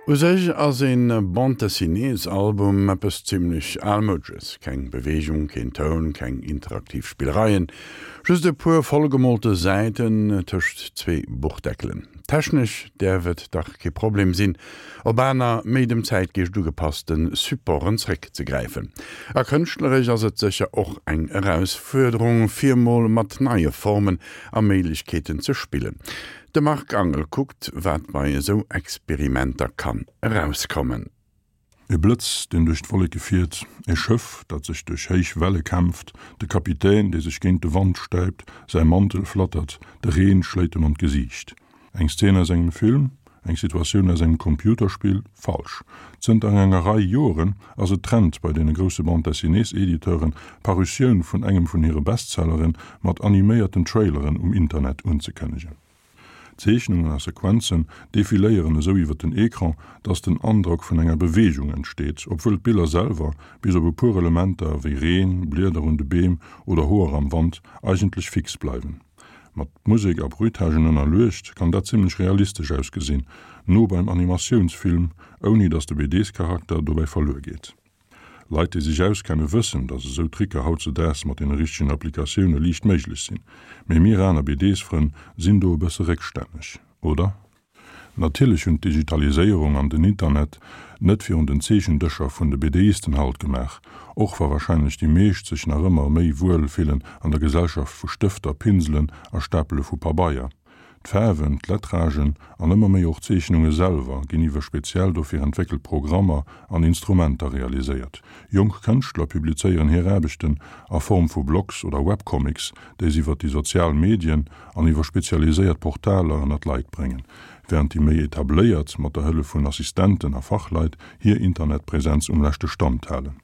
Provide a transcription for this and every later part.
U sech ass een Bande-dessinées-Album eppes zimmlech Almoudsches, keng Beweegung, keen Toun, keng interaktiv Spillereien, just e puer vollgemolte Säiten tëscht zwee Buchdeckelen. Technesch däerf et dach kee Problem sinn, op aner, méi dem Zäitgeescht ugepasste Supporten zréckzegräifen. A kënschtleresch ass et sécher och eng Erausfuerderung, fir mol mat neie Formen a Méiglechkeeten ze spillen. De Marc Angel kuckt, wat bei esou Experimenter kann erauskommen. E Blëtz, deen duerch d'Wolleke fiert, e Schëff, dat sech duerch héich Welle kämpft, de Kapitän, dee sech géint de Wand stäipt, säi Mantel flattert, de Reen schléit em an d'Gesiicht. Eng Szen aus engem Film? Eng Situatioun aus engem Computerspill? Falsch. Zënter enger Rei Joren ass et Trend bei deene grousse Bande-dessinées-Editeuren, d'Parutioun vun engem vun hire Bestselleren mat animéierten Traileren um Internet unzekënnegen. D'Zeechnungen a Sequenzen defiléieren esou iwwer den Ecran, dass den Androck vun enger Beweegung entsteet, obwuel d'Biller selwer, bis op e puer Elementer wéi Reen, Blieder un de Beem oder Hoer am Wand, eigentlech fix bleiwen. Mat Musek a Bruitagen ënnerluecht kann dat zimmlech realistesch ausgesinn, no beim Animatiounsfilm, ouni dass de BDs-Charakter dobäi verluer geet. Leit, déi sech auskenne wëssen, dass esou Tricker hautzedaags mat deene richtegen Applikatioune liicht méiglech sinn. Mee mir aner BDs-Frënn sinn do e bësse réckstänneg, oder? Natierlech hunn d'Digitaliséierung an den Internet net virun den Zeechendëscher vun de BDisten Halt gemaach, och wa warscheinlech déi meescht sech nach ëmmer méi wuel fillen an der Gesellschaft vu Stëfter, Pinselen a Stapele vu Pabeier. D'Faarwen, d'Lettragen an ëmmer méi och d'Zeechnunge selwer ginn iwwer speziell dofir entwéckelt Programmer an Instrumenter realiséiert. Jonk Kënschtler publizéieren hir Aarbechten a Form vu Blogs oder Webcomics, déi se iwwer déi sozial Medien an iwwer spezialiséiert Portaler ënner d'Leit bréngen, wärend déi méi etabléiert mat der Hëllef vun Assistenten a Fachleit hir Internetpresenz um leschte Stand halen.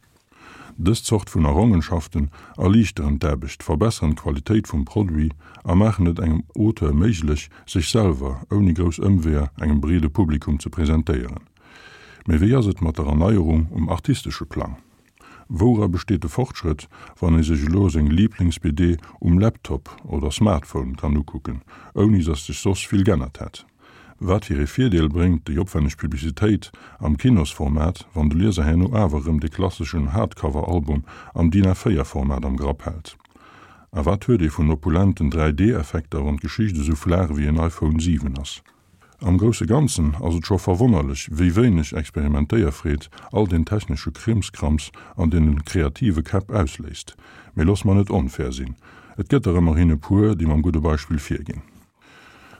Dës Zort vun Errongenschaften erliichteren d'Aarbecht, verbesseren d'Qualitéit vum Produit a maachen et engem Auteur méiglech, sech selwer ouni grouss Ëmweeër engem breede Publikum ze presentéieren. Mee wéi ass et mat der Erneierung um artistesche Plang? Woura besteet de Fortschrëtt, wann ee sech elo seng Liiblings-BD um Laptop oder Smartphone kann ukucken, ouni dass sech soss vill g'ännert hätt? Wat fir ee Virdeel bréngt déi opwenneg Publicitéit am Kinosformat, wann de Lieser herno awer erëm de klasseschen Hardcover-Album am DIN A4 Format am Grapp hält? A wat huet ee vun opulenten 3D-Effekter, wann d'Geschicht esou flaach ewéi en iPhone 7 ass? Am grousse Ganzen ass et scho verwonnerlech, wéi wéineg Experimentéierfreed all deen technesche Krimskrams an deene kreative Käpp ausléist. Mee looss mer net onfair sinn, et gëtt der ëmmerhin e puer, déi mam gudde Beispill virginn.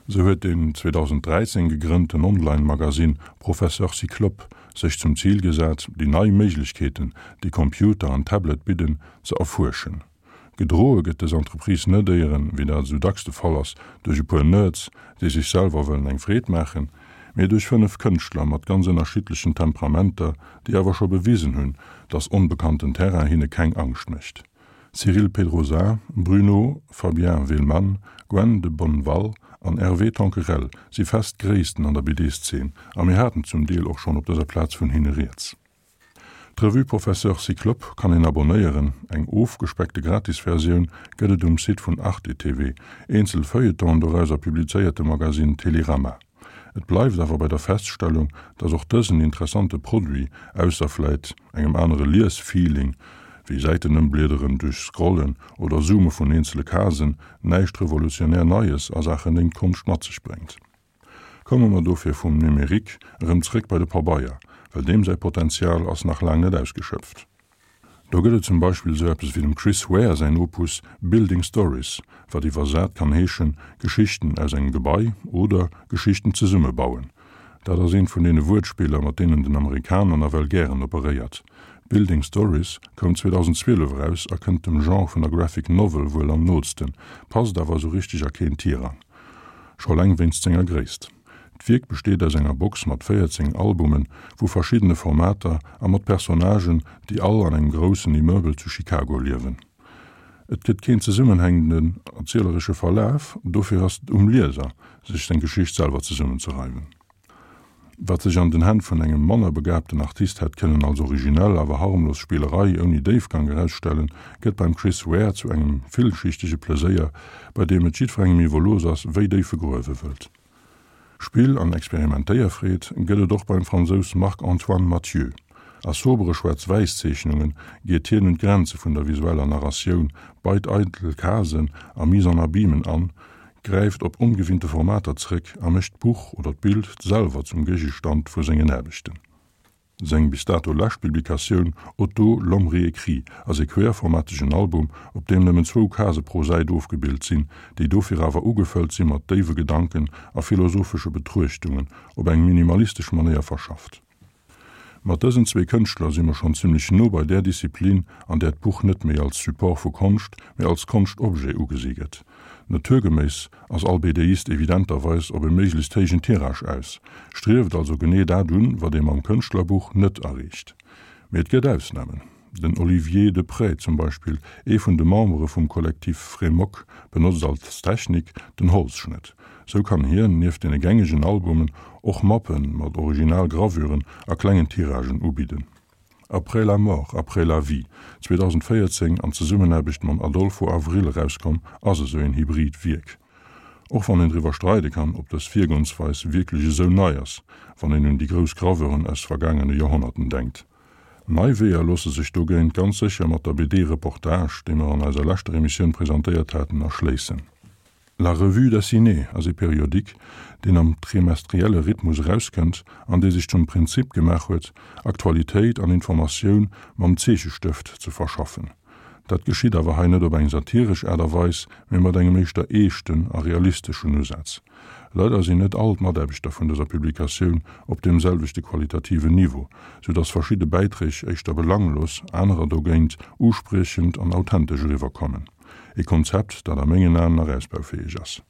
Sou huet deen 2013 gegrënnten Online-Magasinn Professeur Cyclope sech zum Zil gesat, déi nei Méiglechkeeten, déi Computer an Tablet bidden, ze erfuerschen. Gedroe gëtt dës Entreprise net éieren, wéi dat esou dacks de Fall ass, duerch e puer Nerds, déi sech selwer wëllen eng Freed maachen, mee duerch 5 Kënschtler mat ganz ënnerschiddlechen Temperamenter, déi awer scho bewisen hunn, dass onbekannten Terrain hinne keng Angscht mécht. Cyril Pedrosa, Bruno Fabien Willmann, Gwen de Bonneval an Hervé Tanquerel si fest Gréissten an der BD-Szene a mir haten zum Deel och schonn op dëser Plaz vun hinne rieds. D'Revue Professeur Cyclope kann een abonéieren, eng ofgespeckte Gratisversioun gëtt et um Site vun Arte TV, eenzel Feuilletonen dorauser publizéiert de Magasinn Télérama. Et bleift awer bei der Feststellung, dass och dësen interessante Produit, ausser vläit engem anere Lies-Feeling, wéi Säitenëmbliederen duerch Scrollen oder Zoome vun eenzele Casen, näischt revolutionär Neies a Saachen Lénktkonscht mat sech bréngt. Komme mer dofir vum Numérique erëm zréck bei de Pabeier, well deem säi Potenzial ass nach laang net ausgeschöpft. Do gëtt et zum Beispill esou eppes wéi dem Chris Ware säin Opus Building Stories, wat iwwersat kann heeschen Geschichten aus engem Gebai oder Geschichten zesummebauen. Dat ass eent vun deene Wuertspiller, mat deenen den Amerikaner nawell gären operéiert. Building Stories koum 2012 eraus a kënnt dem Genre vun der Graphic Novel wuel am nootsten, passt awer esou richteg a keen Tirang. Scho eleng wéinst senger Gréisst. D'Wierk besteet aus enger Box mat 14 Albumen vu verschiddene Formater a mat Personnagen, déi all an engem groussen Immeuble zu Chicago liewen. Et gëtt keen zesummenhängenden erzieleresche Verlaf, dofir ass et um Lieser, sech seng Geschicht selwer zesummenzereimen. Wat sech an den Hänn vun engem manner begabten Artist hätt kënnen als originell, awer harmlos Spillerei ouni Déifgang erausstellen, gëtt beim Chris Ware zu engem villschichtege Pleséier, bei deem et jiddwerengem iwwerlooss ass, wéi déif e gruewe wëllt. Spill an Experimentéierfreed gëtt et och beim Fransous Marc-Antoine Mathieu. A sobere Schwaarz-Wäiss-Zeechnunge geet hien un d'Grenze vun der visueller Narratioun, beit eidel Casen a Mise-en-abymen an, gräift op ongewinnte Formater zréck a mécht d'Buch oder d'Bild selwer zum Géigestand vu sengen Aarbechten. Seng bis dato lescht Publikatioun Otto, l'homme réécrit ass ee querformategen Album, op deem nëmmen zwou Case pro Säit ofgebilt sinn, déi dofir awer ugefëllt si mat déiwe Gedanken a philosophesche Betruechtungen, op eng minimalistesch Manéier verschafft. Mat dësen zwee Kënschtler si mer schonn zimmlech no bei där Disziplin, an där d'Buch net méi als Support vu Konscht, mee als Konschtobjet ugesi gëtt. Naturgeméiss ass all BDist evidenterweis op e méiglechst héijen Tirage aus, strieft also genee dat un, wat ee mam Kënschtlerbuch net erreecht. Mee et gëtt Ausnamen. Den Olivier Deprez zum Beispill, ee vun de Membere vum Kollektiv Frémok, benotzt als Technik den Holzschnëtt. Sou kann hien, nieft deene gängegen Albumen, och Mappe mat original Gravüren a klengen Tiragen ubidden. Après la mort, après la vie, 2014 an Zesummenaarbecht mam Adolfo Avril erauskomm, ass esou een hybrid Wierk. Och wann een driwwer streide kann, ob dës Virgoensweis wierklech esou nei ass, wann een un déi grouss Graveuren aus vergaangene Joerhonnerten denkt. Nei Weeër loosse sech dogéint ganz sécher mat der BD Reportage, déi mer an eiser leschter Emissioun presentéiert haten, erschléissen. La Revue dessinée ass ee Periodique, deen am trimestrielle Rhythmus erauskënnt an dee sech zum Prinzip gemaach huet, Aktualitéit an Informatioun mam Zeechestëft ze verschaffen. Dat geschitt awer hei net op eng satiresch Aart a Weis, mee mat engem éischter eeschten a realisteschen Usaz. Leider sinn net all d'Mataarbechter vun dëser Publikatioun op deem selwechte qualitativen Niveau, sou dass verschidde Bäiträg éischter belanglos, anerer dogéint uspriechend an authentesch eriwwerkommen. E Konzept, dat a mengen Aen nach ausbaufäeg ass.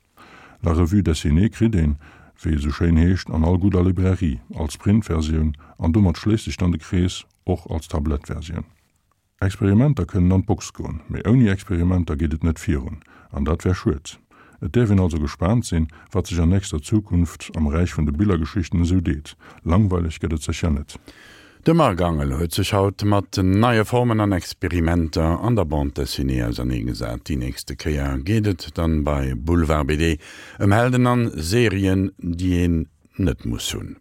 La Revue dessinée kritt een, wéi et esou schéin heescht, an all gudder Librairie, als Printversioun an domat schléisst sech dann de Krees, och als Tablettversioun. Experimenter kënnen an d'Box goen, mee ouni Experimenter geet et net virun, an dat wär schued. Et däerf een also gespaant sinn, wat sech an nächster Zukunft am Räich vun de Billergeschichten esou deet. Langweileg gëtt et sécher net. De Marc Angel huet sech haut mat neie Formen an Experimenter an der Bande Dessinée auserneegesat. Déi nächste Kéier geet et dann bei Boulevard BD ëm Helden an Serien, déi een net muss hunn.